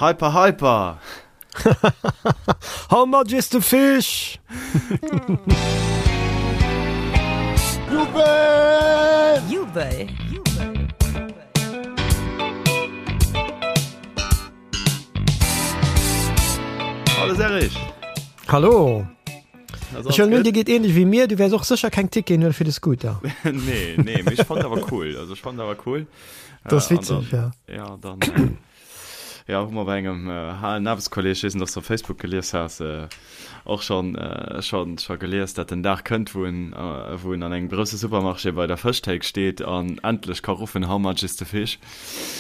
Hyper Hyper! How much is the fish? Jubel! Jubel! Hallo Serge! Hallo! Ech huelen un, dir geet ähnlech wéi mir, du wäers och sécher keng Ticketen huelen fir de Scooter. Nee, nee, mee ech fand awer cool. Also ech fand awer cool. Dat ass witzeg, ja. Ja, dann äh, ja, hu mer bei engem äh, halen Aarbechtskolleg, ech weess net, ob s du op Facebook gelies has, äh, och schon, äh, schon, scho gelies, dat den Dag kënnt, wou en, äh, wou en an engem grousse Supermarché bei der Fëschthéik steet an endlech ka ruffen, How much is the fish?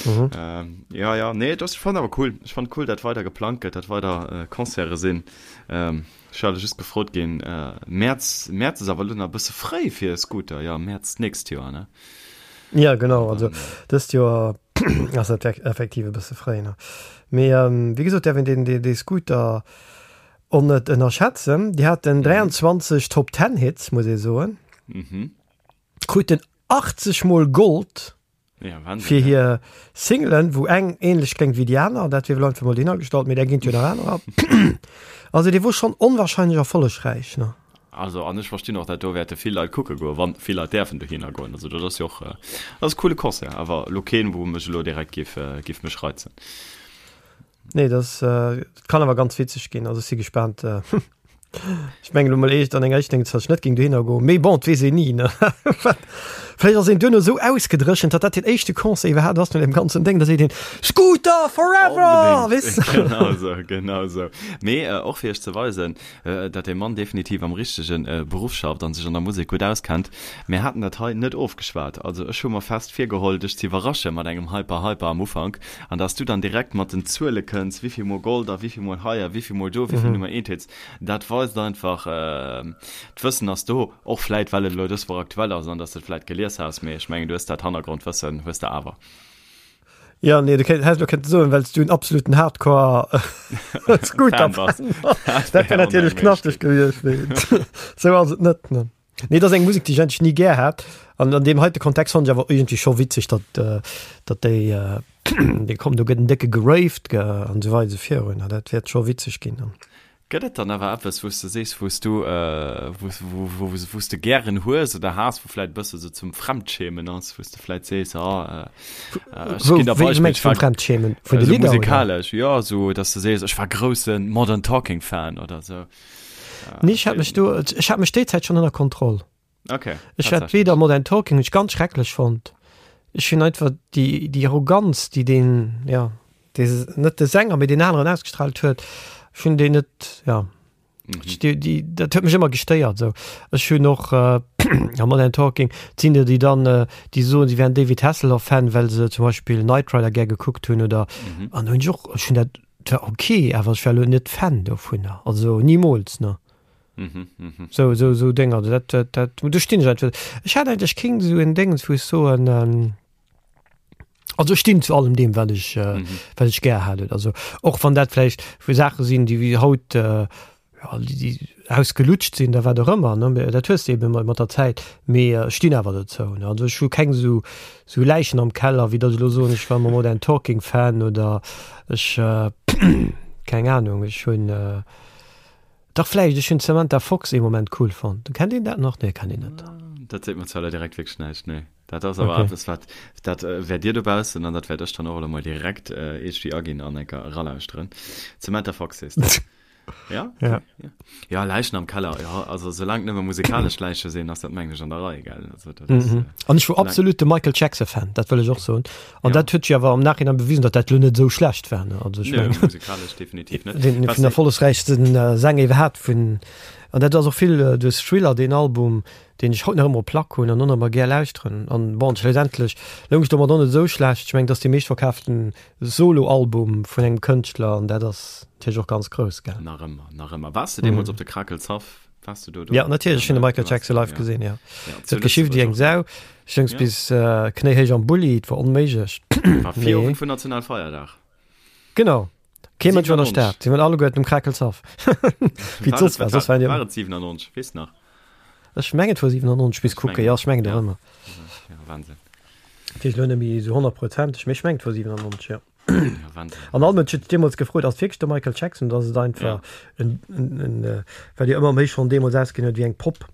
Mhm. Ähm, ja, ja, nee, dat, ech fand awer cool. Ech fand cool, dat weider geplangt gëtt, dat weider äh, Concerte sinn. Ähm, Ech war just gefrot ginn, Mäerz, Mäerz ass awer elo nach e bësse fréi fir e Scooter, jo, Mäerz d'nächst Joer, ne? Ja, genau, also dëst Joer ass dat effektiv e bësse fréi, ne? Mee wéi gesot, däerf een deen, dee, dee Scooter och net ënnerschätzen. Déi haten 23 Top Ten Hits, muss ee soen. Kruten 80 mol Gold. Ja, Wahnsinn, fir ja. hir Singlen, wou eng ähnlech kléngt wéi déi aner, dat wier elo einfach mol dohinner gestallt, mee där ginn et jo nach anerer. Also dee wor schonn onwahrscheinlech erfollegräich, ne? Also an ech verstinn och, dat do wäerte vill Leit kucke goen, wann vill Leit däerfen dohinner goen. Also dat ass jo och, dat ass e coole Concert, awer elo keen, wou mech elo direkt géif, géif mech reizen. Nee, dat kann awer ganz witzeg ginn. Also ech si gespaant. Ech mengen elo mol eescht an enger éischter Ding, datt ech net géing dohinner goen. Mee bon, et weess een ni, ne? Vläicht ass een duerno esou ausgedréchent, datt dat deen éischte Concert iwwerhaapt ass no deem ganzen Déng, da seet een, Scooter forever! Weess de? Genau esou, genau esou. Mee och fir iech ze weisen, datt dee Mann definitiv am richtege Beruff schafft an sech an der Musek gutt auskennt, Mir haten dat hei net ofgeschwat. Also ech hu mer fest virgeholl, dech ze iwwerrasche mat engem Hyper Hyper am Ufank an dass du dann direkt mat den Zuele kënns, wéivill mol Gold a wéivill mol hei a wéivill mol do, wéivill Nummer eent Hits. Dat weist einfach, d'Wëssen ass do. Och vläit well et elo dës Woch aktuell ass an dass de et vläit gelies has, mee ech mengen du hues dat Hannergrondwëssen hues de awer. Ja nee, du häss elo kënnte soen, well s du en absoluten Hardcore Scooter Fan bass. Dat wär natierlech knaschteg gewiescht, mee sou ass et net, ne. Nee, dat ass eng Musek, déi ech eigentlech ni gär hat. An an deem heite Kontext fannen ech awer iergendwéi scho witzeg, datt, datt déi, déi kommen, do gëtt en décke geraved an esou weider esou virun. Dat wäert scho witzeg ginn. Gëtt et dann awer eppes, wou s de sees, wou s du, wou, wou, wou, wou s de gären hues oder has, wou vläit e bësse sou zum Fremdschämen ass, wou s de vläit sees, ah, ech ginn der Wéi Beispill, mengs ech war vum Fremdschämen? Vun de esou Lidder, oder? musikalesch, jo, esou, datt s de sees, ech war grousse Modern Talking Fan oder esou. Nee, ech hat mech do, ech hat mech déi Zäit schonn ënner Kontroll. Okay. Ech hat weder Modern Talking hunn ech ganz schrecklech fonnt. Ech hunn einfach déi, déi Arroganz, déi deen, ja, dee, net de Sänger, mee deen aneren ausgestrahlt huet, ech hunn déi net, ja. Mhm. Ech, déi, déi, dat huet mech ëmmer gestéiert esou. Ech hunn och äh, ja, Modern Talking, et sinn der, déi dann, äh, déi soen, si wären David Hasselhoff-Fan, well se zum Beispill Knight Rider gär gekuckt hunn oder, mhm. an hunn ech och, ech hunn dat Et war ok, awer ech war elo net Fan dovunner, also nimools, ne. Mhm, mhm. Sou, sou, sou Dénger, dat, dat, dat, do stinn ech einfach. Ech hat eigentlech keng sou en Déngens, wou ech soen, ähm, also ech stinn zu allem deem, wat ech, äh, mhm. wat ech gär hat. Also och wann dat vläicht vu Saache sinn, déi wéi haut, äh, ja, déi, déi ausgelutscht sinn, da wat och ëmmer, ne, mä dat hues de eben mat der Zäit, mee ech stinn awer dozou, ne. Also ech hu keng esou, esou Läichen am Keller, wéi datt ech elo soen, ech war ëmmer Modern Talking Fan oder ech, keng Ahnung, ech hunn, dach vläicht, ech hunn d'Samantha Fox ee Moment cool fonnt. Kennt een dat nach? Nee, kennt een net. Dat seet mer zwar elo direkt wierklech näischt, nee. Dat ass awer eppes, wat, dat wäert Dir dobaussen an dat wäert ech dann och elo mol direkt iergendwéi aginn an enker eralauschteren. Samantha Fox sees de? Ja? Ja. Ja, ja Läichen am Keller, ja, also solange nëmme musikalesch Läiche sinn, ass dat mengen ech an der Rei, gell? Also, dat ass, Mhm. äh, An ech wor solange- absolut de Michael Jackson Fan, dat wëll ech och soen. An Ja. dat huet sech awer am Nachhinein bewisen, datt dat lo net esou schlecht war, ne? Also ech Nö, mengen, musikalesch definitiv net. den Was vun erfollegsräichsten äh, Sänger iwwerhaapt vun an dat ass och vill äh, duerch Thriller, deen Album, deen ech haut nach ëmmer op Plack hunn an och nach ëmmer gär lauschteren. An bon, schlussendlech loung ech domat och net esou schlecht. Ech mengen, dat ass dee meeschtverkaaften Solo-Album vun engem Kënschtler an dat ass natierlech och ganz grouss, gell? Nach ëmmer, nach ëmmer. Waars de deemools op de Krakelshaff? Waars du do do? Ja, natierlech, ech hunn de Michael Jackson live gesinn, ja. Et huet geschift wéi eng Sau. Ech soungs bis knéihéich am Bulli, et war onméiglech. War Virowend vun Nationalfeierdag. Genau. Kee Mënsch war an der Stad. Si waren alleguerten um Krakelshaff. Wéi et soss war. Soss waren déi. War et 97? Weess nach? Ech mengen et war 97, bis kucken. Jo, ech mengen et och ëmmer. Ja, Wahnsinn. Dat heescht elo net méi esou honnertprozenteg, mee ech mengen et war 97, jo. Ja, Wahnsinn. An all Mënsch huet sech deemools gefrot, ass et wierklech de Michael Jackson oder ass et einfach Ja. en, en, en, äh, well jo ëmmer méi schonn deemools ausgesinn huet wéi eng Popp.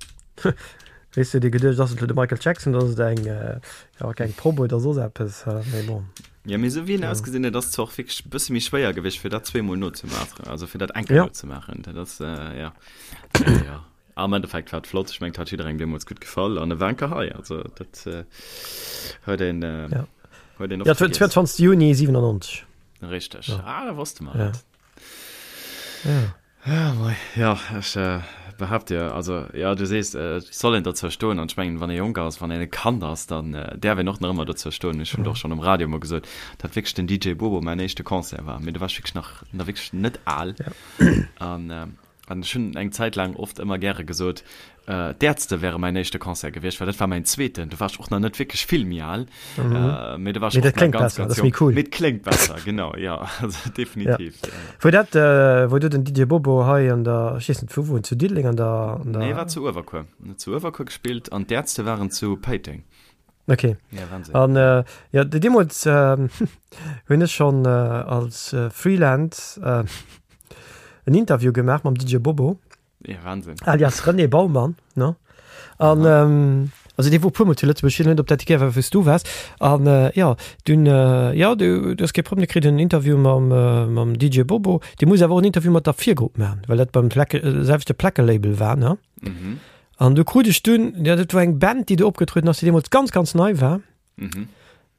Weess du, huet ee geduecht, ass et elo de Michael Jackson oder ass et eng, äh, ja, eng Popp oder soss eppes, äh, mee bon. Ja, mee esou wéi en Ja. ausgesinn huet, ass et zwar och wierklech e bësse méi schwéier gewiescht, fir dat zweemol nozemaachen, also fir dat eng Kéier Ja. nozemaachen. Dat ass, äh, ja. Ja, ja. Am Endeffekt war et flott, ech mengen et hat jidderengem deemools gutt gefall an e war enker hei, also dat huet een Ja. huet een Ja, oft vergiess. 22. Juni 97. Richteg, Ja. ah da wosste mer Ja. et. Ja. Ja, mei, ja ech behaapt dir, also ja du sees et soll een dozou stoen an ech mengen wann ee jonk ass, wann een e Kand ass, dann däerf een och nach ëmmer dozou stoen. Ech hunn et och schonn um Radio emol gesot, datt wierklech den DJ Bobo mäin éischte Concert war, mee do war ech wierklech nach nach wierklech net al Ja. an An ech hunn eng Zäit laang oft ëmmer gäre gesot, d'Ärzte wäre mäin éischte Concert gewiescht, well dat war mäin zweeten. Do war ech och nach net wierklech vill méi al, mee do war ech Mee dat och nach kléngt ganz, besser, ganz dat ass méi jonk. cool. Mee et kléngt besser, genau, jo, also Ja. definitiv, ja. Wou dat, wou du den DJ Bobo hei an der, ech weess net wou, wou en zu Diddeleng an der, an Nee, der. war zu Uewerkuer. En huet zu Uewerkuer gespillt an d'Ärzte waren zu Péiteng. Okay. Ja, Wahnsinn. An äh, ja, deemools äh, hunn ech schonn äh, als äh, Freelance äh, en Interview gemaach mam DJ Bobo. Ja, Wahnsinn. Alias René Baumann, ne? An ähm, also dee wor puermol zu Lëtzebuerg, ech weess net, ob dat déi Kéier war, wou s du waars. An äh, ja, dunn äh, ja, du, du hues kee Problem, du kritt en Interview mam, äh, mam DJ Bobo. Dee muss awer och en Interview mat der Virgrupp maachen, well dat beim Placke, äh, selwechte Plackelabel war, ne? Mhm. An du krut ech dunn, ja, dat war eng Band, déi do opgetrueden ass, déi deemools ganz, ganz nei war. Mhm.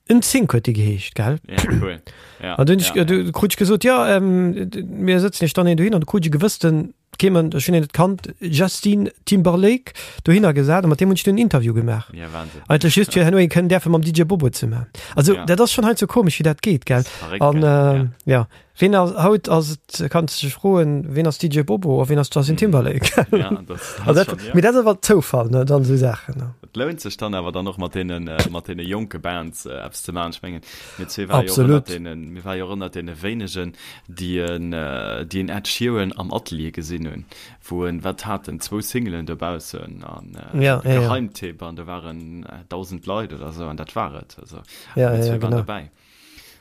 NSYNC huet déi geheescht, gell? Ja, cool. Ja, An dunn ja, ja, du krut ech gesot, ja, ähm, mir sëtzen iech dann een dohin, an du krut ech e gewëssten, kee Mënsch, ech hunn een net kannt, Justin Timberlake dohinner gesat, a mat deem hunn ech dunn en Interview gemaach. Ja, Wahnsinn. Eigentlech just fir herno een kënnen däerfe mam DJ Bobo ze maachen. Also, Ja. dat ass schonn heiansdo komesch, wéi dat geet, gell? Das ist verrückt, An, gell? äh, Ja. ja. Ween ass, haut ass et, kanns de dech froen, ween ass DJ Bobo a ween ass Justin Timberlake? Ja, das, das Also dat, schon, ja. mee dat ass awer Zoufall, ne, dann esou Saachen, ne. Et lount sech dann awer dann och mat deenen, äh, mat deene jonke Bands äh, eppes ze maachen. Ech mengen, mir zwee ware jo och ënnert Absolut. deenen, mir ware jo och ënnert deene wéinegen, déi en, äh, déi en Ed Sheeran am Atelier gesinn hunn, wou en, wat hat en, zwou Singelen dobaussen an äh, Ja, de ja, ja. Geheimtipp an do waren äh, 1.000 Leit oder sou an dat war et. Also, Ja, mir ja, zwee ja, waren genau. dobäi.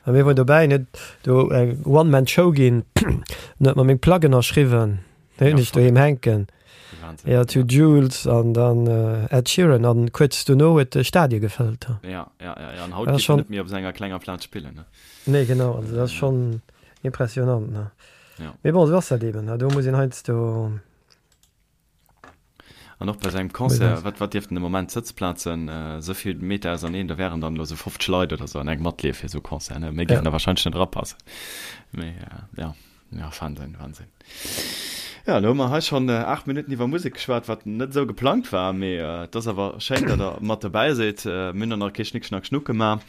A mir woren dobäi, net do eng One-Man-Show ginn, net mat meng Pluggen erschriwwen, déi hunn Ja, ech doheem hänken. Wahnsinn. Ja, to Jules an dann äh, Ed Sheeran an kuerz dono huet de Stadie gefëllt. Ja, ja, ja, ja. An haut Dat ass geet en schon net méi op senger klenger Plaz spillen, ne? Nee, genau, also dat ass schon impressionant, ne? Ja. Mee bon, esou ass dat eben, ne? Do muss een heiansdo. An och bei sengem Concert, wat, wat dierften de Moment Sëtzplazen esou vill Meter auserneen, do wären dann elo esou 50 Leit oder esou an engem Atelier fir esou e Concert, ne? Méi géifen der wahrscheinlech net erapassen. Mee ja, ja, Wahnsinn, Wahnsinn. Ja, elo hu mer hei schonn 8 Minutten iwwer Musek geschwat, wat net esou geplangt war, mee et ass awer schéin, datt der mat dobäi sidd. Mir hunn och nach kee Schnick Schnack Schnuck gemaach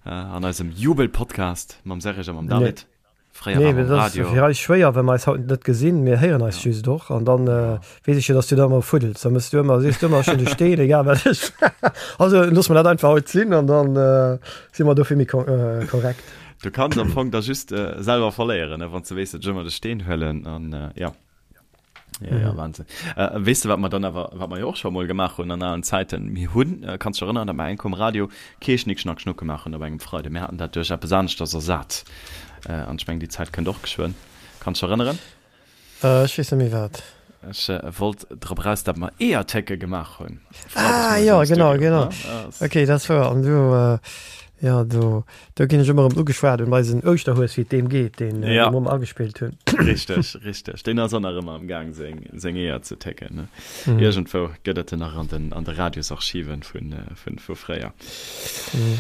an eisem Jubel-Podcast mam Serge a mam David. Fréier Nee, war mam dat ass Radio. fir eis schwéier, well mer eis haut net gesinn. Mir héieren eis Ja. just och an dann Ja. äh, weess ech jo, dass du da ëmmer fuddels. Da mëss du ëmmer, sees du ëmmer, ech hunn de Steen, egal wat ech. Also loosse mer dat einfach haut sinn an dann äh, si mer dofir méi ko äh, korrekt. Du kanns am Fong da just äh, selwer verléieren, ne, wann s du weess, datt ech ëmmer de Steen huelen an äh, ja. Ja, ja, Wahnsinn. Äh, weess de, wat mer dann awer, wat mer jo och scho mol gemaach hunn an alen Zäiten? Mir hunn, äh, kanns dech erënneren, datt mer eng Kéier um Radio kee Schnick Schnack Schnuck gemaach hunn op engem Freide. Mir haten dat duerch eppes aneschters ersat. Äh, an ech mengen, déi Zäit kënnt och geschwënn. Kanns dech erënneren? Äh, ech weess net méi wat. Ech äh, wollt drop eraus, datt mer Eeërtécke gemaach hunn. Freides Ah, moies jo, am genau, Studio, genau. ne? Ass. Okay, dat ass wouer. An du, äh, Jo, do, do ginn ech ëmmer erëm ugeschwat un eisen Ouschterhues, wéi et deem geet, deen äh, Ja. mer agespillt hunn. Richteg, richteg. Deen ass och nach ëmmer am Gaang, seng, seng Eeër ze técken. Ne? Mhm. Iergendwou gëtt et en nach an den, an de Radiosarchiven vun, äh, vun, vu fréier. Mhm.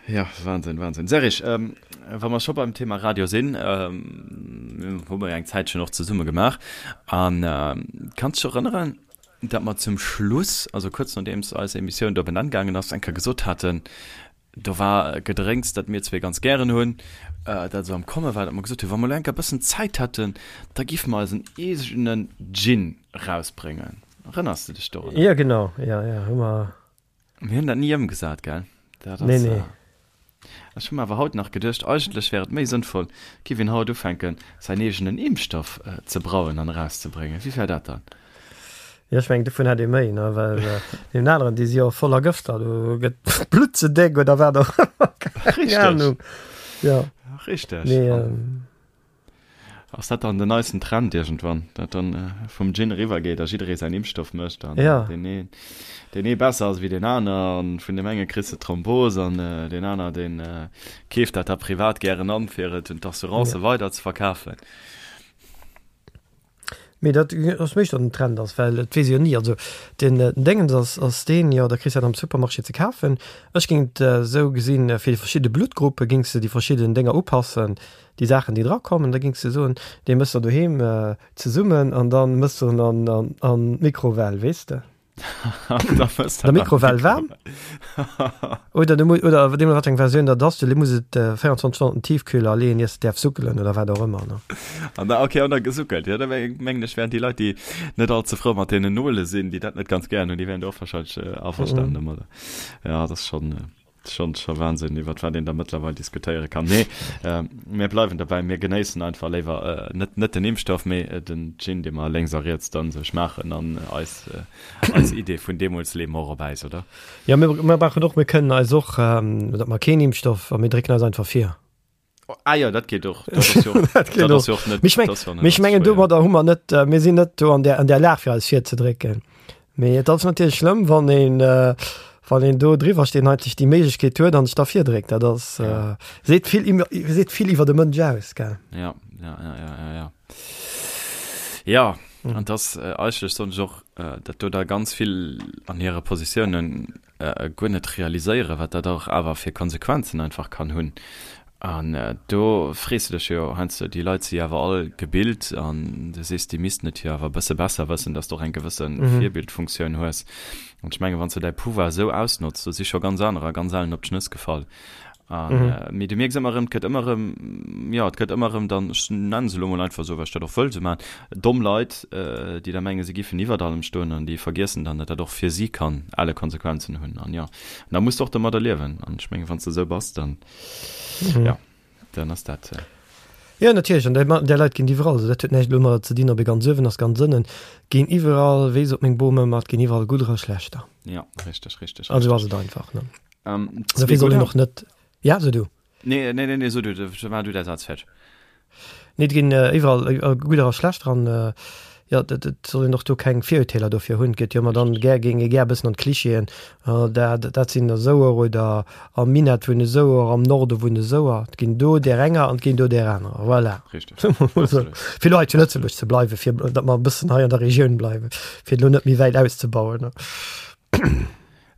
Ja, Wahnsinn, Wahnsinn. Serge, ähm, wa mer scho beim Thema Radio sinn, ähm, hu mer jo eng Zäitchen och zesumme gemaach. An ähm, kanns dech erënneren, datt mer zum Schluss, also kuerz nodeems eis Emissioun do op en Enn gaangen ass, eng Kéier gesot haten, do war e Gedrénks, dat mir zwee ganz gären hunn, dat esou am Komme war, datt mer gesot hunn, wa mer elo eng Kéier e bëssen Zäit hätten, da géife mer eisen eegenen Gin erausbréngen. Erënners de dech dorunner? Jo, genau, jo, jo, hu mer. Mir hunn dat ni ëmgesat, gell? Dat ass, Nee, nee. Ech hu mer awer haut nach geduecht, eigentlech wär et méi sënnvoll, giff een haut ufänken, säin eegenen Impfstoff ze brauen an erauszebréngen. Wéi wär dat dann? Jo, ech mengen, dovun hätt ee méi, ne? Well deenen aneren, déi si jo voller Gëfter, do gëtt d'Blutt ze déck oder wat och ëmmer, keng Richteg. Ahnung. Jo. Richteg. Mee, ähm, Ass dat dann den neisten Trend iergendwann, dat dann äh, vum Gin eriwwer geet a jidderee säin Impfstoff mécht an ja. deen een, deen ee besser ass wéi deen aner an vun deem enge kriss de Thrombos an äh, deen aner deen äh, keeft dat da privat gären an, fir et un d'Assurancë ja. weider ze verkafen. Mee dat ass méi datt en Trend ass, well et weess ee jo ni. Also den Déngens ass ass deen, jo da kriss de dat am Supermarché ze kafen. Ech géing et esou gesinn, fir déi verschidde Bluttgruppe géings de déi verschidden Dénger upassen, déi Saachen déi drakommen. Da géings de soen, dee mëss der doheem zesummen an da mëss de en an an d'Mikrowell, weess de. Der Mikrowell waarm oder du oder deem wat eng Versioun dat ass, du muss et 24 Stonnen Tiefkühler leeën iers de däerf suckelen oder wat och ëmmer ne. An da okay an da gesuckelt jo da mengen ech wären déi Leit déi net all ze frou mat deenen Nole sinn, déi dat net ganz gären hunn, déi wären do och wahrscheinlech averstanen domadder. Ja dat ass schonn. Schon, scho Wahnsinn, iwwert wat een da mëttlerweil diskutéiere kann. Nee, äh, mir bleiwen dobäi, mir genéissen einfach léiwer äh, net, net den Impfstoff, mee äh, den Gin, dee mer lénks a riets dann sech maachen an eis, äh, eis Idee vun deemools leeë mer och op Äis, oder? Ja, mir, mir brauchen och, mir kënnen eis och, ähm, datt mer keen Impfstoff a mir drécken eis einfach vir. Ah jo, dat geet och. Dat ass jo och, Dat geet dat ass och. jo och net, Mee ech meng, dat ass jo net mee ech allze mengen schwéier. domadder hu mer net, äh, mir sinn net do an där, an där Lag fir eis virzedrécken. Mee et ass natierlech schlëmm, wann een, äh, wann een do driwwer steet an eigentlech déi Méiglechkeet huet an sech da virdréckt. Dat ass, Ja. äh, seet vill iwwer, seet vill iwwer de Mënsch aus, gell? Ja, ja, ja, ja, ja, ja. Ja, an das äh, eigentlech soen ech och, äh, dat do da ganz vill an hire Positiounen guer net realiséieren, wat dat och awer fir Konsequenzen einfach kann hunn. An do frees de dech jo heiansdo, déi Leit si awer all gebilt an du sees, déi missten et jo awer e bësse besser wëssen, dass de och eng gewësse Virbildfunktioun hues. An ech mengen, wann s de däi Pouvoir esou ausnotz, do si scho ganz anerer ganz ellen op d'Schnëss gefall. An, mee du mierks ëmmer erëm, et gëtt ëmmer erëm, jo, et gëtt ëmmer erëm dann, ech nennen se elo mol einfach esou, well ech dat och wëll esou maachen, domm Leit, déi da mengen, se giffen iwwert allem stoen an déi vergiessen dann, datt dat och fir si kann elle Konsequenzen hunn. An jo, an da muss de och domadder liewen. An ech mengen, wann s de esou bass, dann, jo, dann ass dat. Jo, natierlech, an där, där Leit ginn et iwwerall. Also dat huet näischt elo domadder ze dinn, ob ee ganz uewen ass, ganz ënnen. Ginn iwwerall, wéi sot meng Bom ëmmer, et ginn iwwerall Gudder a Schlechter. Jo, richteg, richteg, Also ass richteg. et einfach, ne? Ähm, Dofir soll een och net, ja, so du. Nee, nee, nee, nee, so du, war du der Satz fertig. Nee, et ginn äh, iwwerall äh, gudder a schlechter an äh, ja, dat, dat soll een och do keng Virurteeler dofir hunn. Gëtt jo ëmmer dann gär géing ee gär e bëssen an d'Klischeeën, äh, dat, dat sinn der esouer oder am Minett wunne esouer, am Norde wunne esouer. Et ginn do där enger an et ginn do där anerer. Voilà. Richtig. Absolut. Fir elo hei zu Lëtzebuerg ze bleiwen, fir datt mer e bëssen hei an der Regioun bleiwen, fir elo net méi wäit auszebauen.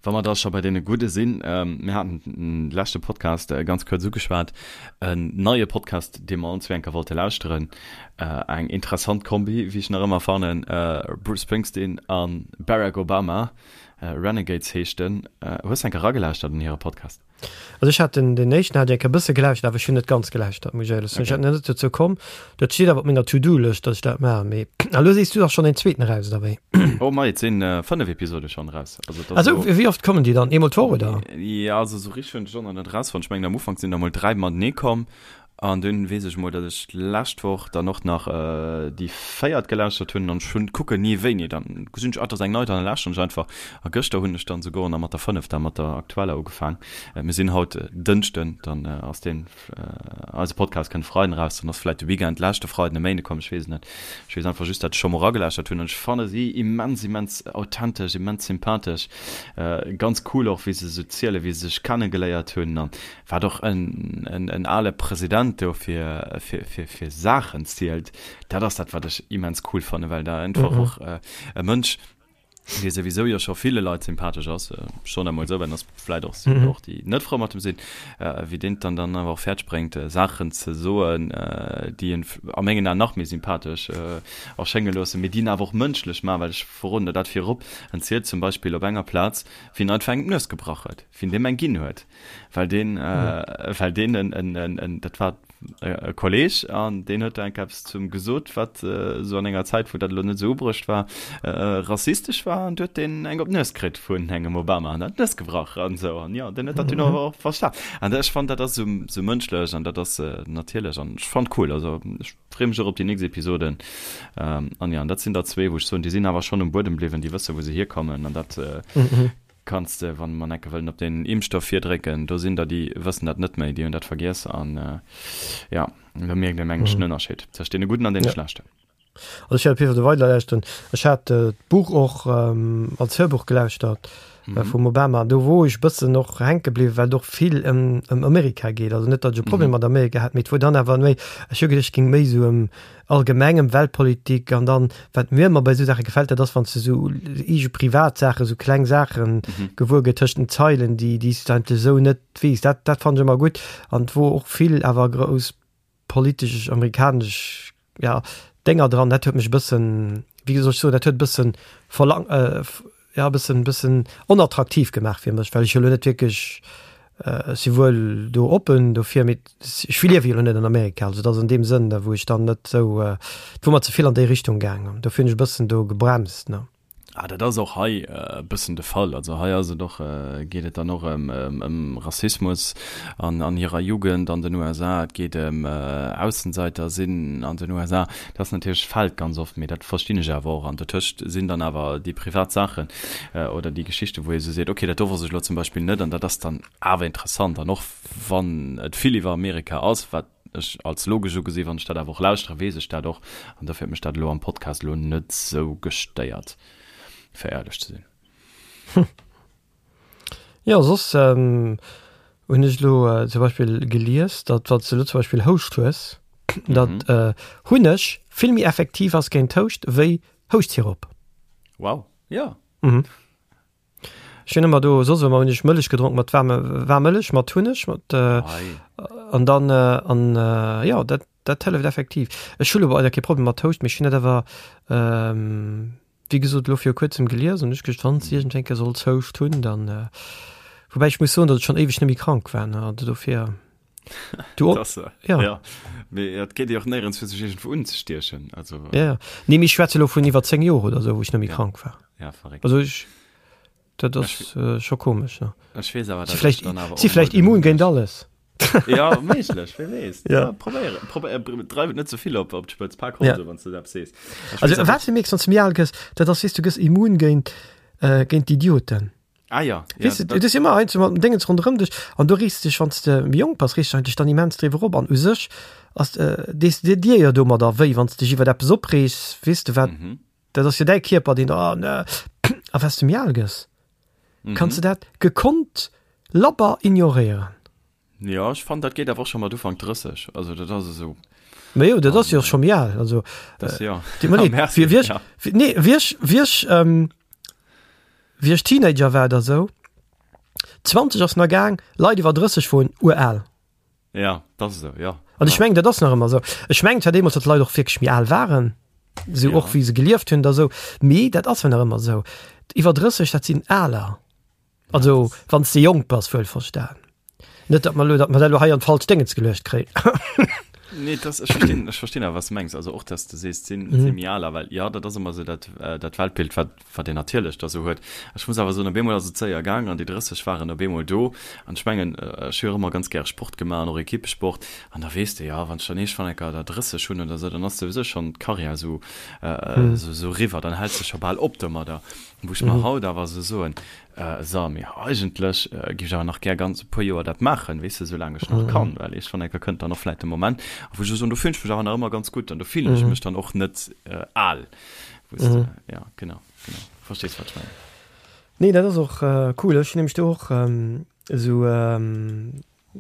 Wa mer da scho bei deene Gudde sinn, mir haten de leschte Podcast ganz kuerz ugeschwat, en neie Podcast, dee mer ons eng Kéier wollte lauschteren, eng interessant Kombi, wéi ech nach ëmmer fannen, Bruce Springsteen a Barack Obama, Renegades heescht en. Hues de eng Kéier eragelauschtert an hire Podcast? Also ech hat den, den éischten hat ech e bësse gelauschtert, awer ech hunn net ganz gelauschtert, muss ech éierlech soen. Ech hat net dozou komm. Dat steet awer op menger To-Do-Lëscht, datt ech dat maachen. Mee a lo sees du, ass schonn een zweeten eraus, oder wéi? Oh mei, et sinn 5 Episode schonn eraus. Also, dat ass Also, wéi oft kommen déi dann? Eemol d'Woch, oder? Ja, also sou richteg hunn ech och nach net erausfonnt. Ech mengen am Ufank sinn der mol 3 matenee komm. An dunn weess ech mol, datt ech d'lescht Woch dann och nach déi véiert gelauschtert hunn an ech hunn kucken ni wéini. Dann gesinn ech, ah, et ass eng nei, dann lauschteren ech einfach. A gëschter hunn ech dann souguer nach mat der fënnefter, mat der aktueller ugefaang. Mir sinn haut Dënschden, dann ass deen, eise Podcast kënnt Freiden eraus, dann ass vläit de Weekend leschte Freiden e Méinde komm, ech weess et net. Ech weess einfach just, datt ech scho mol eragelauschtert hunn an ech fanne si immens, immens authentesch, immens sympathesch. Ganz cool och, wéi se esou zielen, wéi se sech kennegeléiert hunn an Wat och en ale President do fir Saachen zielt, dat ass dat, wat ech immens cool fannen, well da einfach och e Mënsch, dee souwisou jo scho ville Leit sympathesch ass, schonn emol esou, well en ass vläit och och déi net frou mat em sinn, wéi deen et dann dann awer och fäerdeg bréngt, Saachen ze soen, déi en a mengen Aen nach méi sympathesch erschénge loossen, mee déi en awer och mënschlech maachen, well ech verroden der dat virop, en zielt zum Beispill op enger Plaz, wéi en einfach engem d'Nues gebrach huet, wéi en deem eng ginn huet. Well deen, well deen en, en, en, en, dat war e Kolleg an deen huet da enk eppes zum gesot, wat esou an enger Zäit, wou dat elo net esou ubruecht war, rassistesch war an du huet deen eng op d'Nues kritt vun engem Obama an hat d'Nues gebrach an esou an jo, deen huet dat dunn awer och verstan. An ech fannen, dat ass esou, esou mënschlech an dat ass natierlech an ech fannen cool. Also ech freeë mech och op déi nächst Episoden. An jo, an dat sinn der zwee, wou ech soen, déi sinn awer schonn um Buedem bliwwen, déi wësse wou se hierkommen an dat. Kanns de, wann mer enke wëllen op den Impfstoff virdrécken, do sinn der, déi wëssen dat net méi, déi hunn dat vergiess an jo, do mierkt een, mengen ech, den Ënnerscheed tëscht deene Gudden an deene Schlechten. Also ech wäert op jidde Fall do weider lauschteren. Ech hat d'Buch och als Hörbuch gelauschtert vum Obama, do wor ech bëssen och hänke bliwwen, well et och vill ëm ëm Amerika geet. Also net, datt ech e Problem mat Amerika hätt, mee et wor dann awer méi, ech hu geduecht, et géing méi esou ëm allgemeng ëm Weltpolitik an dann, wat mir ëmmer bei esou Saache gefält, dat ass, wann s de esou eege privat Saachen, esou kleng Saache gewuer gëtt tëscht den Zeilen, déi déi s de eigentlech esou net weess. Dat dat fannen ech ëmmer gutt an et wor och vill awer grouss politesch amerikanesch ja, Dénger dran, dat huet mech e bëssen, wéi soll ech soen, dat huet e bëssen verlang, ja e bëssen, bëssen onattraktiv gemaach fir mech, well ech jo elo net wierklech, ech si wuel do oppen dofir, mee ech liewe jo elo net an Amerika, also et ass an deem Sënn, da wou ech dann net esou, et wor mer ze vill an déi Richtung gaang, dofir hunn ech e bëssen do gebremst, ne. Ah, dat ass och hei e bëssen de Fall. Also hei ass et och, geet et dann och ëm ëm Rassismus an an hirer Jugend an den USA. Et geet ëm Aussenseiter sinn an den USA. Dat ass natierlech, fält ganz oft, mee dat verstinn ech awer och. An dotëscht sinn dann awer déi privat Saachen oder déi Geschichten, wou ee sou seet, okay, dat do wosst ech elo zum Beispill net an dat ass dann awer interessant. An och wann et vill iwwer Amerika ass, wat ech als logesch ugesi, wann ech dat awer och lauschtere weess ech dat och an dofir huet mech dat elo am Podcast elo net sou gestéiert, fir éierlech ze sinn. Hm. Jo, soss hunn ech elo zum Beispill gelies, datt wann s de elo zum Beispill Houscht hues, datt Hunneg vill méi effektiv ass géint Houscht wéi Houschtsirop. Wow, jo. Mhm. Ech hunn ëmmer do soss ëmmer hunn ech Mëllech gedronk mat waarme waarm Mëllech mat Hunneg mat äh, an dann äh, an äh, ja dat dat hëlleft effektiv. Ech hu lo leider kee Problem mat Houscht, mee ech hunn dat awer ähm, wéi gesot elo viru kuerzem gelies an ech geduecht wann s iergendwéi eng Kéier solls Houscht hunn, dann äh, woubäi ech muss soen, datt ech schonn éiweg net méi krank war, ne, also dofir. Du och? Das, äh, ja. ja. Mee et geet jo och néierens fir sech iergendwou unzestiechen. Also, äh, ja, ja. Nee, mee ech schwätze lo vun iwwer 10 Joer oder sou, wou ech net méi ja. krank war. Ja, verréckt. Also ech, dat ass äh, scho komesch. Ne? Ech weess awer, Si vläicht, si vläicht immun géint alles. Ja, méiglech, wie weess. Ja. ja probéieren, probéieren, dreiw et net ze vill op, op d'Spëtz, pak Ja. Hose, wann s du dat sees. Ech Also weess awer, wat du mierks, wann s du méi al gëss, dat ass, weess du gëss immun géint, äh, géint d'Idioten. Ah ja, ja Weess de, et ass ëmmer eins mat dem Déngens ronderëm dech an du rees dech, wann s de méi jonk bass, rees du dech dann immens driwwer op an u sech ass, dees de dir jo domadder wéi, wann s dech iwwer eppes opreegs, weess de wat, dat ass jo däi Kierper, deen, oh ne, a wat s de méi al gëss, kanns de dat gekonnt labber ignoréieren. Jo, ech fannen dat geet awer och scho mat Ufank 30, also dat ass esou. Ma jo, dat ass jo och scho méi al, also. Dat jo. Deet mer leed, Merci, wéi ech, ja. nee, wéi ech, wéi ech, wéi ech Teenager war oder esou, 20 ass nach gaang, Leit iwwer 30 woren ural. Ja, dat ass esou, jo. An ech mengen, dat ass nach ëmmer esou. Ech mengen zwar deemools, datt d'Leit och wierklech méi al waren, esou och wéi se gelieft hunn oder esou, mee dat ass jo nach ëmmer esou. Iwwer 30, dat sinn Aler. Also wann s de jonk bass, wuel verstan. Net datt mer elo, datt mer dat elo hei an d'falsch Déngens geluecht kréien. Nee, das, ech verstinn, ech verstinn awer, wat s de mengs. Also och, dass de sees, sinn, mm. sinn méi aler, well ja, dat ass ëmmer esou dat, äh, dat Weltbild, wat, wat een natierlech da sou huet. Ech muss awer soen, op eemol ass et séier gaang an déi 30 waren op eemol do. An ech mengen, äh, ech hu jo och ëmmer ganz gäre Sport gemaach an och Ekippesport. An da weess de, ja, wann ech dann iergendwann eng Kéier der 30 hunn oder sou, dann ass souwisou schonn d'Karriär sou, äh, mm. sou, sou riwwer, dann häls de scho bal op domadder. Wou ech mer haut awer esou soen, So, mee eigentlech géif ech awer nach gär ganz e puer Joer dat maachen, weess de, soulaang ech nach kann, well iergendwann eng Kéier kënnt dann och vläicht de Moment, a wou ech esou soen, do fillen ech mech awer nach ëmmer ganz gutt an do fillen ech mech dann och net al, wou s de, ja, genau, genau, verstees, wat ech mengen. Nee, dat ass och cool. Ech hunn nämlech do och esou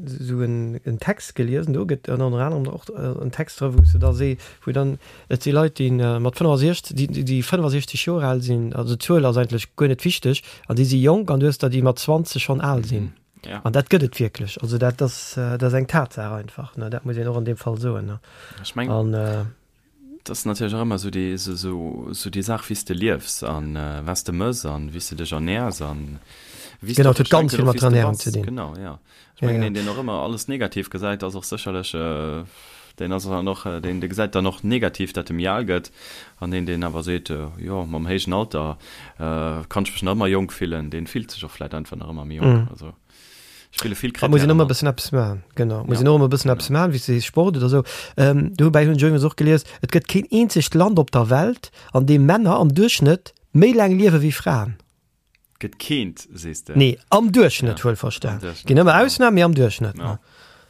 esou en Text geliesen, do gëtt ënner anerem och en Text dra wou se da see wou dann et si Leit déi mat 65 déi déi 65 Joer al sinn, also d'Zuel ass eigentlech guer net wichteg, an déi si jonk an du hues der déi mat 20 schonn al sinn. Ja. An dat gëtt et wierklech, also dat ass dat ass eng Tatsaach einfach, ne, dat muss een och an deem Fall soen, ne. Ech meng. An. Et ass natierlech och ëmmer esou déi, esou déi Saach, wéi s de liefs an wat s de mëss an wéi s de dech ernäers an wéi s de Genau, och, et huet ech ganz denken vill och, mat wéi der s de Ernährung bass. ze dinn. Genau, jo. Ech Ja, mengen, ja. een, deen och ëmmer alles negativ gesäit, ass och sécherlech, deen ass dann och, deen, dee gesäit dann och negativ, dat e méi al gëtt. An een, deen awer seet, jo, mam héijen Alter kann ech mech nach ëmmer jonk fillen, deen fillt sech och vläicht einfach nach ëmmer méi jonk. Also. Spille vill Da muss een Krittären ëmmer mat. bëssen eppes maachen. Genau, muss Ja, een och ëmmer bëssen eppes genau. maachen, wéi s de sees, Sport oder esou. Ähm, dobäi hunn ech iwwregens och gelies, et gëtt keen eenzegt Land op der Welt, an deem Männer am Duerchschnëtt méi laang liewe wéi Fraen. Gëtt keent, sees de? Nee, am Duerchschnëtt wuel verstan. Ginn ëmmer Ausnamen, mee am Duerchschnëtt. Ja.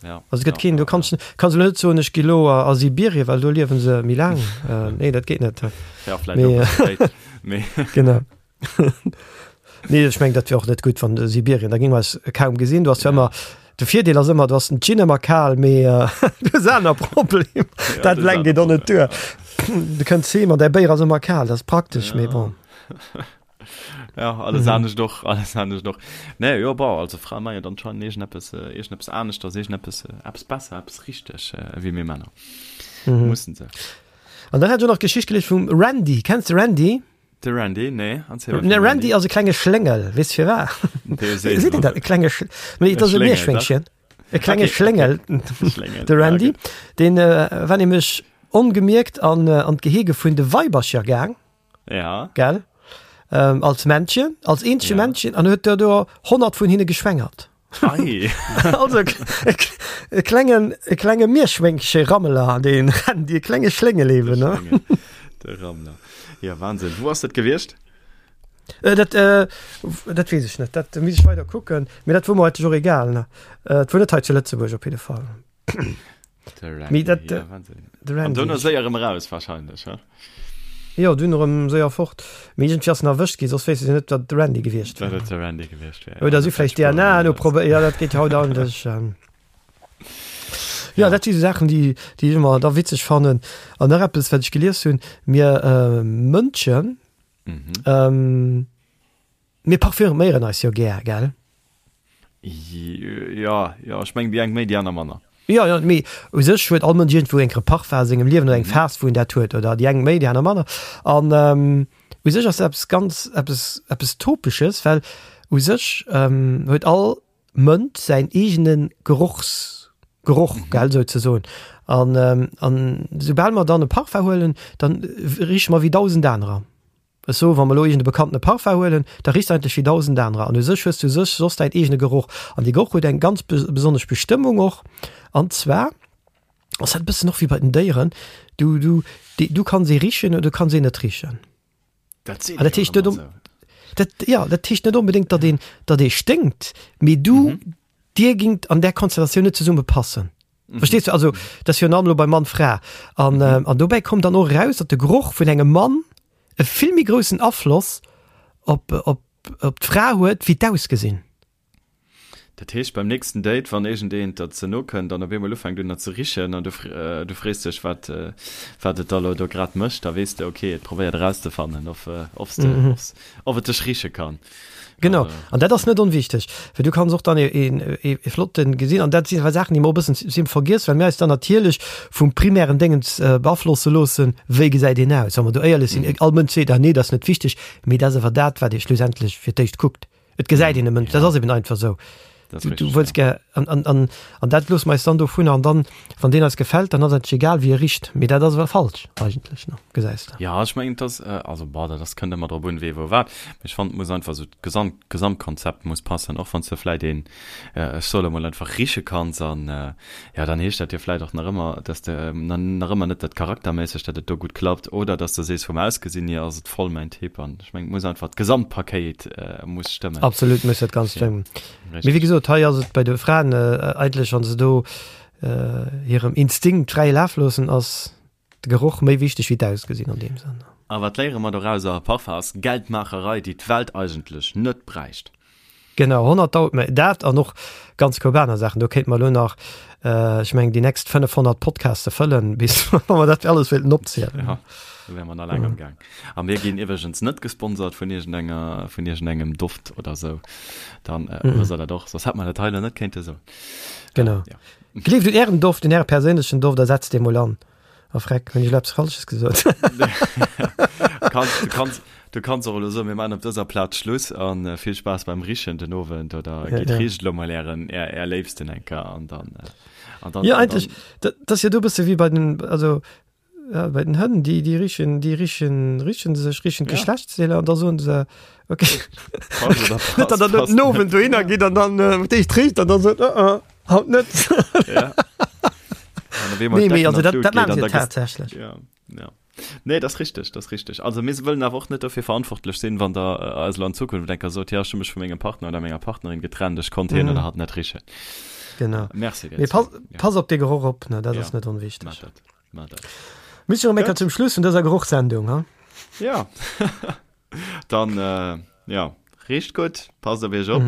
Ja. Also et gëtt keen, du kanns, kanns elo net soen, ech gi lo a Sibirien, well do liewen se méi laang. Nee, dat geet net. Ja, vläicht och e bësse spéit, mee. Genau. Nee, ech meng, dat wier och net gutt, wann Sibirien, da géinge mer eis kaum gesinn. Du has jo ëmmer, de Virdeel ass ëmmer, du has den Gin ëmmer kal, mee du hues aner Problemer. Dat eleng geet och net duer. Du kënns heem an däi Béier ass ëmmer kal, dat ass praktesch, mee bon. Ja, alles mhm. anescht och, alles anescht och. Nee, jo, bon, also Frae maachen jo anscheinend iergendeppes, äh, iergendeppes aneschters, iergendeppes, äh, eppes besser, eppes richteg, äh, wéi mir Männer. Mhm. Mussen se. An dann hat ech och nach d'Geschicht gelies vum Randy. Kenns de Randy? De Randy, nee, erzähl mal. Ne, Randy ass e klenge Schléngel, weess de firwat? Seet een dat, e klenge Sch Nee, et ass e Mierschwéngchen. E klenge okay, Schléngel, okay. de Randy. Ja, deen äh, war nämlech ongemierkt an, äh, an d'Gehege vun de Weibercher gaang. Ja. Gell? Ähm, als Männchen, als eenzege ja. Männchen, an huet der do 100 vun hinne geschwängert. Ei. also e, e klengen, e klenge Mierschwéngche Rammeler, den Randy, e klenge Schléngel eben. Ne? De Rammler. Ja, Wahnsinn. Wo ass dat gewiescht? Äh, dat, äh, dat weess ech net, dat muss ech weider kucken. Mee dat wor mer eigentlech och egal. Ne? Äh, et wor net hei zu Lëtzebuerg op jidde Fall. Mee dat, ja, de Randy. An dunn séier erëm eraus wahrscheinlech, he? Jo, dunn erëm séier fort. Mee iergendwéi ass en erwëscht ginn, soss wéisst ech net, wat de Randy gewiescht wär. Wat et de Randy gewiescht wär. Oder si vläicht DNA noprobéiert, ja, dat geet jo haut eigentlech. Ja, dat si sou Saachen, déi, déi ech ëmmer da witzeg fannen. An nach eppes, wat ech gelies hunn, Mir Mënschen, mir parfüméieren eis jo gär, gell? Jo, jo, ech mengen déi eng méi, déi aner manner. Jo, jo, mee u sech huet all Mënsch iergendwou eng Parfum a sengem Liewen oder eng Phas, wou en dat huet, oder déi eng méi, déi aner manner. An u sech ass dat eppes ganz, eppes, eppes Topesches, well u sech huet all Mënsch säin eegene Gerochs, Geroch, gell, souzesoen. An, an soubal mer dann e Parfum huelen, dann riche mer wéi 1.000 anerer. Ech soen, wa mer elo iergend e bekannte Parfum huelen, da richt eigentlech wéi 1.000 anerer. An u sech hues du u sech soss däin eegene Geroch. An dee Geroch huet eng ganz besonnesch Bestëmmung och. An zwar ass dat e bëssen och wéi bei den Déieren, du, du, du kanns ee richen oder du kanns een net richen. Dat seet An dat heescht net um, dat, ja, dat heescht net onbedéngt, datt een, datt ee sténkt, mee du, mhm. dir gingt an där Konstellatioun net zesumme passen. Mhm. Verstees du? Also, dat ass virun allem elo bei Mann, Fra. An, mhm. äh, an dobäi kommt dann och eraus, datt de Geroch vun engem Mann e vill méi groussen Afloss op, op, op d'Fra huet, wéi d'Ausgesinn. Dat heescht, beim nächsten Date, wann iergendeen der ze no kënnt an op eemol ufänkt un der ze richen an du, du frees dech, wat, wat et da lo do grad mécht, da weess de, okay, et probéiert erauszefannen, of, of s de, of et dech riche kann. Genau, an dat ass net onwichteg, well du kanns och dann e, e, e flotten gesinn an dat sinn awer Saachen, déi mer och e bëssen sim vergiess, well mir eis dann natierlech vum primären Déngens beaflosse loossen, wéi gesäit een aus. Wa mer do éierlech sinn, all Mënsch seet, ah nee, dat ass net wichteg, mee dat ass awer dat, wat ee schlussendlech fir d'éischt kuckt. Et gesäit een e Mënsch, dat ass eben einfach esou. Du, du wëlls gär, an, an, an, an dat loosse mer eis dann dovunner an dann, wann deen eis gefält, dann ass et egal, wéi e richt. Mee dat ass awer falsch eigentlech, ne, gesäis de. Ja, ech mengen, et ass, also bon, dat ass, kënnt ëmmer drop un, wee wou wat. Mee ech fannen, et muss einfach esou d'Gesamt, d'Gesamtkonzept muss passen, och wann s de vläit een, ech soe lo mol einfach, riche kanns an, ja, dann heescht dat jo vläit och nach ëmmer, dass de nach ëmmer net dat charakterméisseg, dat et do gutt klappt oder dass de sees, vum Ausgesinn hier ass et voll mäin Typ an ech mengen, et muss einfach d'Gesamtpakéit muss stëmmen. Absolut muss dat Ganzt stëmmen. Mee wéi gesot, hei ass et bei de Fraen eigentlech, wa se do hirem Instinkt fräie Laf loossen, ass de Geroch méi wichteg wéi d'Ausgesinn an deem Sënn. A wat léiere mer dorauser? Parfum ass Geldmaacherei, déi d'Welt eigentlech net bräicht. Genau, 100.000, mä dat an och ganz koup aner Saachen. Do kéinte mer elo nach, ech mengen, déi nächst 500 Podcaste fëllen, bis wa mer dat alles wéilten opzielen. Ja, do wäre mer nach laang am Gaang. A mir ginn iwwregens net gesponsert vun iergendenger, vun iergendengem Doft oder sou. Dann wësst der dat och, soss hätt mer dat hei elo net kéinte soen. Genau. Ja. Gleeft un Ären Doft, un Äre perséinlechen Doft a setzt dee mol an. A freck, hunn ech elo eppes Falsches gesot? Kanns, du kanns, du kanns och elo soen, mir maachen op dëser Plaz Schluss an vill Spaass beim Richen den Owend oder ja, gitt ja. richt elo mol ären, är, är Léifsten eng Kéier an dann, an dann. Ja, eigentlech, dat, dat ass jo do e bësse wéi bei den, also ja, bei den Hënn, déi, déi richen, déi richen, richen sech, richen d'Geschlechtsdeeler an da soen se, okay. Passt oder passt, Net, datt der passt den Owend dohinner gitt an dann äh, d'éischt richt an dann sot, uh, uh. Haut net. Ja. Nee, mee also dat, dat maachen se tatsächlech. Ja, ja. Nee, dat ass richteg, dat ass richteg. Also mir wëllen awer och net dofir verantwortlech sinn, wann der eis elo an Zukunft eng Kéier sot, jo ech hu mech vu mengem Partner oder menger Partnerin getrennt, ech konnt hien oder hatt net richen. Genau. Merci dir. Mee pass, pass op dee Geroch op, ne, dat ass net onwichteg. Maach dat, maach dat. Mir si rëm eng Kéier zum Schluss vun dëser Gerochssendung, ha? Ja. Dann, jo, richt gutt, passt op iech op.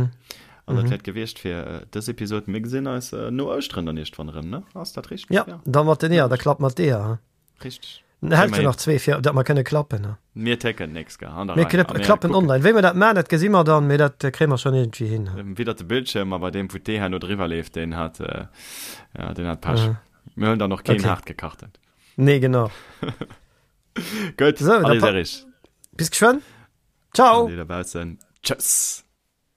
An dat wär et gewiescht fir dës Episod. Mir gesinn eis no Ouschteren dann iergendwann erëm, ne? Ass dat richteg? Ja, da mat den Eeër, da klappt mat d'Eeër, ha? Richteg. Dann hält jo nach zwee fir dat mer kënne klappen, ha? Mir técken nix, gell, an der Mir Rei. A mir klappen kucken. online. Wéi mer dat man, dat gesi mer dann, mee dat kréie mer schonn iergendwéi hin, ha? Widdert de Bildschirm, a bei deem, wou d'Ee herno driwwer leeft, deen hat, ja, deen hat Pech. Mir huelen dann och keen Okay. haartgekachten. Nee, genau. Gutt, So, da allez, pa Erich. bis geschwënn. Ciao! An dir dobaussen, tschëss!